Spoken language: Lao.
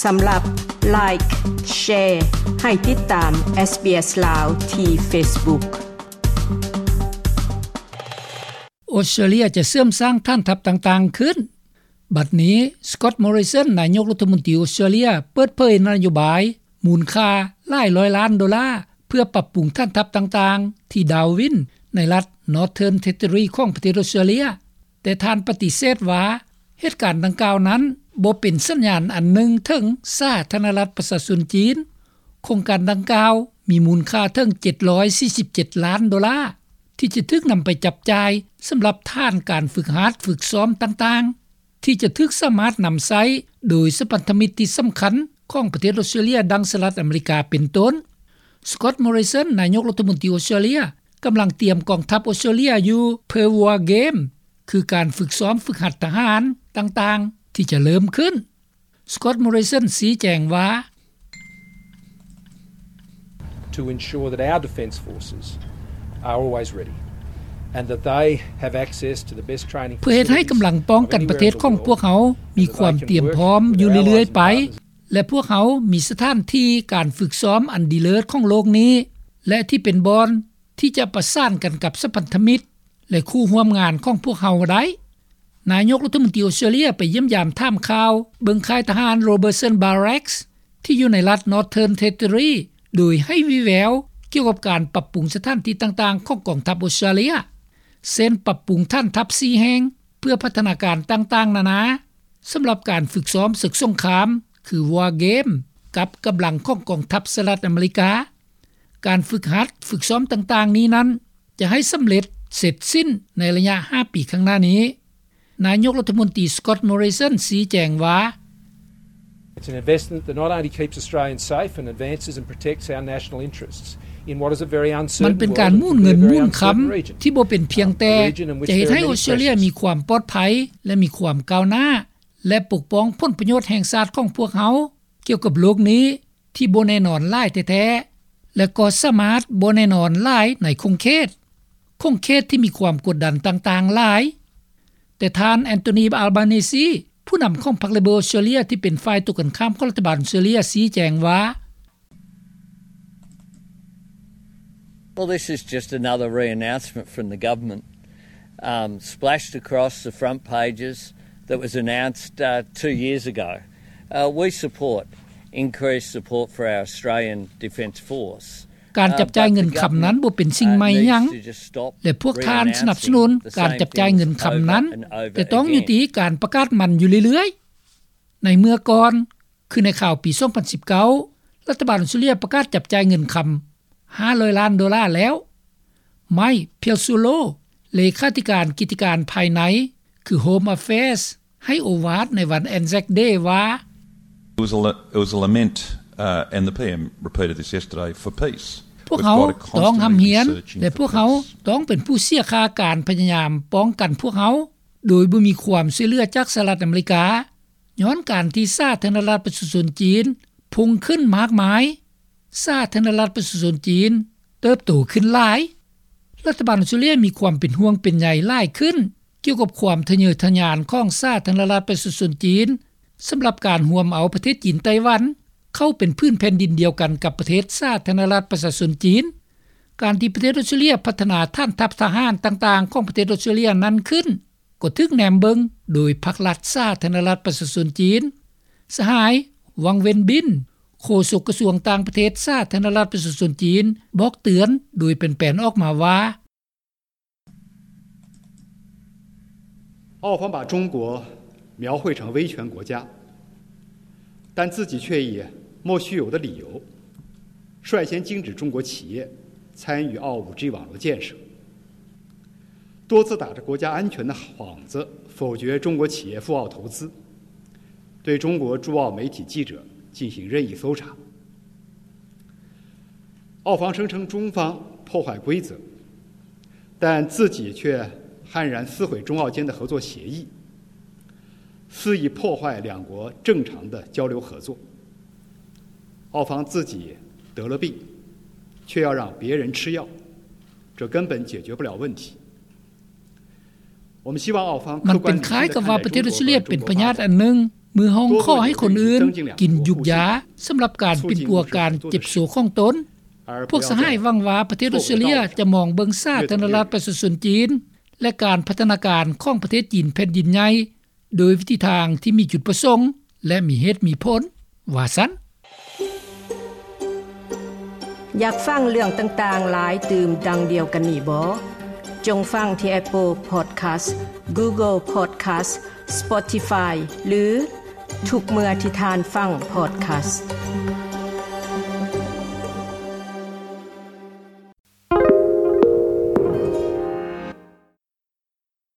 ສຳລັບ Like, Share ໃຫ້ຕິດຕາມ SBS ລາວ ທີ່ Facebook. ອອສເຕຣເລຍຈະເສີມສ້າງຖານທັບຕ່າງໆຂຶ້ນ. ບັດນີ້ Scott Morrison ນາຍົກລັດຖະມົນຕີອອສເຕຣເລຍ ເປີດເຜີຍນະໂຍບາຍມູນຄ່າຫຼາຍຮ້ອຍລ້ານໂດລາ ເພື່ອປັບປຸງຖານທັບຕ່າງໆທີ່ Darwin ໃນລັດ Northern Territory ຂອງປະເທດອອສເຕຣເລຍ, ແຕ່ທ່ານປະຕິເສດວ່າ ເຫດການດັ່ງກ່າວນັ້ນບໍ່ເປັນສັນຍານອັນໜຶ່ງເຖິງສາທາລະນະລັດປະຊາຊົນຈີນ. ໂຄງການດັ່ງກ່າວມີມູນຄ່າເຖິງເຈັດຮ້ອຍສີ່ສິບເຈັດລ້ານໂດລາ ທີ່ຈະຖືກນຳໄປຈັບຈ່າຍສຳລັບຖານການຝຶກຫັດຝຶກຊ້ອມຕ່າງໆ ທີ່ຈະຖືກສາມາດນຳໃຊ້ໂດຍສະພັນທະມິດທີ່ສຳຄັນຂອງປະເທດອອສເຕຣເລຍ ດັ່ງສະຫະລັດອາເມລິກາເປັນຕົ້ນ. Scott Morrison ນາຍົກລັດຖະມົນຕີອອສເຕຣເລຍ ກຳລັງຕຽມກອງທັບອອສເຕຣເລຍຢູ່ເພື່ອ War Game ຄືການຝຶກຊ້ອມຝຶກຫັດທະຫານຕ່າງໆທີ່ຈະເລີ່ມຂຶ້ນ. Scott Morrison ຊີ້ແຈງວ່າ To ensure that our defence forces are always ready and that they have access to the best training facilities of anywhere in the world ເພື່ອເຮັດໃຫ້ກຳລັງປ້ອງກັນປະເທດຂອງພວກເຮົາມີຄວາມຕຽມພ້ອມຢູ່ເລື້ອຍໆໄປ ແລະ ພວກເຮົາມີສະຖານທີ່ການຝຶກຊ້ອມອັນດີເລີດຂອງໂລກນີ້ ແລະ ທີ່ເປັນບ່ອນທີ່ຈະປະສານກັນກັບສະພັນທະມິດ ແລະ ຄູ່ຮ່ວມງານຂອງພວກເຮົາໄດ້. ນາຍົກລັດຖະມົນຕີອອສເຕຣເລຍໄປຢ້ຽມຢາມຖາມຂ່າວເບິ່ງຄ້າຍທະຫານ Robertson Barracks ທີ່ຢູ່ໃນລັດ Northern Territory ໂດຍໃຫ້ວີແວວກ່ຽວກັບການປັບປຸງສະຖານທີ່ຕ່າງໆຂອງກອງທັບອອສເຕຣເລຍ ເຊັ່ນ ປັບປຸງຖານທັບສີ່ແຫ່ງເພື່ອພັດທະນາການຕ່າງໆນານາ ສຳລັບການຝຶກຊ້ອມເສິກສົງຄາມ ຄື War Game ກັບກຳລັງຂອງກອງທັບສະຫະລັດອາເມລິກາ. ການຝຶກຫັດຝຶກຊ້ອມຕ່າງໆນີ້ນັ້ນ ຈະໃຫ້ສຳເລັດເສັດສິ້ນໃນໄລຍະຫ້າປີຂ້າງໜ້ານີ້. ນາຍົກລັດຖະມົນຕີ Scott Morrison ຊີ້ແຈງວ່າ It's an investment that not only keeps Australians safe and advances and protects our national interests in what is a very uncertain world and could be a very uncertain region. ມັນເປັນການໝູນເງິນໝູນຄຳທີ່ບໍ່ເປັນພຽງແຕ່ຈະເຮັດໃຫ້ອອສເຕຣເລຍມີຄວາມປອດໄພ ແລະ ມີຄວາມກ້າວໜ້າ ແລະ ປົກປ້ອງຜົນປະໂຫຍດແຫ່ງຊາດຂອງພວກເຮົາ ກ່ຽວກັບໂລກນີ້ທີ່ບໍ່ແນ່ນອນຫຼາຍແທ້ໆ ແລະ ກໍສາມາດບໍ່ແນ່ນອນຫຼາຍໃນຂົງເຂດ, ຂົງເຂດທີ່ມີຄວາມກົດດັນຕ່າງໆຫຼາຍ. ແຕ່ທ່ານ Anthony Albanese ຜູ້ນຳຂອງພັກ Labor ອອສເຕຣເລຍ ທີ່ເປັນຝ່າຍຕົວກັນຂ້າມຂອງລັດຖະບານອອສເຕຣເລຍ ຊີ້ແຈງວ່າ Well, this is just another re-announcement from the government, um, splashed across the front pages that was announced, uh, two years ago. Uh, we support increased support for our Australian Defence Force. ການຈັບຈ່າຍເງິນຄຳນັ້ນບໍ່ເປັນສິ່ງໃໝ່ຫຍັງ ແລະ ພວກທ່ານສະໜັບສະໜູນການຈັບຈ່າຍເງິນຄຳນັ້ນ, ແຕ່ຕ້ອງຍຸຕິການປະກາດມັນຢູ່ເລື້ອຍໆ. ໃນເມື່ອກ່ອນ ຄືໃນຄາວປີສອງພັນສິບເກົ້າ ລັດຖະບານອອສເຕຣເລຍປະກາດຈັບຈ່າຍເງິນຄຳຫ້າຮ້ອຍລ້ານໂດລາແລ້ວ. Mike Pezzullo ເລຂາທິການກິດຕິການພາຍໃນ ຄື Home Affairs ໃຫ້ໂອວາດໃນວັນ Anzac Day ວ່າ It was a, it was a lament, uh, and the PM repeated this yesterday, for peace. ພວກເຮົາຕ້ອງຮ່ຳຮຽນ ແລະ ພວກເຮົາຕ້ອງເປັນຜູ້ເສຍຄ່າການພະຍາຍາມປ້ອງກັນພວກເຮົາ ໂດຍບໍ່ມີຄວາມຊ່ວຍເຫຼືອຈາກສະຫະລັດອາເມລິກາ ຍ້ອນການທີ່ສາທາລະນະລັດປະຊາຊົນຈີນພຸ່ງຂຶ້ນມາກມາຍ, ສາທາລະນະລັດປະຊາຊົນຈີນເຕີບໂຕຂຶ້ນຫຼາຍ. ລັດຖະບານອອສເຕຣເລຍມີຄວາມເປັນຫ່ວງເປັນໃຍຫຼາຍຂຶ້ນກ່ຽວກັບຄວາມທະເຍີທະຍານຂອງສາທາລະນະລັດປະຊາຊົນຈີນ ສຳລັບການຮວມເອົາປະເທດຈີນໄຕ້ຫວັນເຂົ້າເປັນຜືນແຜ່ນດິນດຽວກັນກັບປະເທດສາທາລະນະລັດປະຊາຊົນຈີນ. ການທີ່ປະເທດອອສເຕຣເລຍພັດທະນາຖານທັບທະຫານຕ່າງໆຂອງປະເທດອອສເຕຣເລຍນັ້ນຂຶ້ນ ກໍຖືກແນມເບິ່ງໂດຍພັກລັດສາທາລະນະລັດປະຊາຊົນຈີນ. ສະຫາຍ ວັງ ເວັນບິນ ໂຄສົກກະຊວງຕ່າງປະເທດສາທາລະນະລັດປະຊາຊົນຈີນ ບອກເຕືອນໂດຍແປນໆອອກມາວ່າ 澳方把中国描绘成威权国家，但自己却以莫须有的理由 率先禁止中国企业参与澳五G网络建设，多次打着国家安全的幌子否决中国企业赴澳投资，对中国驻澳媒体记者进行任意搜查。澳方声称中方破坏规则，但自己却悍然撕毁中澳间的合作协议， 肆意破坏两国正常的交流合作。澳方自己得了病，却要让别人吃药，这根本解决不了问题。我们希望澳方客观理性地看待中国和中国发展。 ມັນເປັນຄ້າຍກັບວ່າປະເທດອອສເຕຣເລຍເປັນພະຍາດອັນໜຶ່ງ ເມື່ອຮ້ອງຂໍໃຫ້ຄົນອື່ນກິນຢູກຢາສຳລັບການປິ່ນປົວການເຈັບໂຊຂອງຕົນ, ພວກສະຫາຍຫວັງວ່າປະເທດອອສເຕຣເລັຽຈະມອງເບິ່ງສາທາລະນະລັດປະຊາຊົນຈີນ ແລະ ການພັດທະນາການຂອງປະເທດຈີນແຜ່ນດິນໃຫຍ່ ໂດຍວິທີທາງທີ່ມີຈຸດປະສົງ ແລະ ມີເຫດມີຜົນ, ວ່າຊັ້ນ. ຢາກຟັງເລື່ອງຕ່າງໆຫຼາຍຕື່ມດັ່ງດຽວກັນນີ້ບໍ? ຈົ່ງຟັງທີ່ Apple Podcast, Google Podcast, Spotify ຫຼື ທຸກເມື່ອທີ່ທ່ານຟັງ Podcast.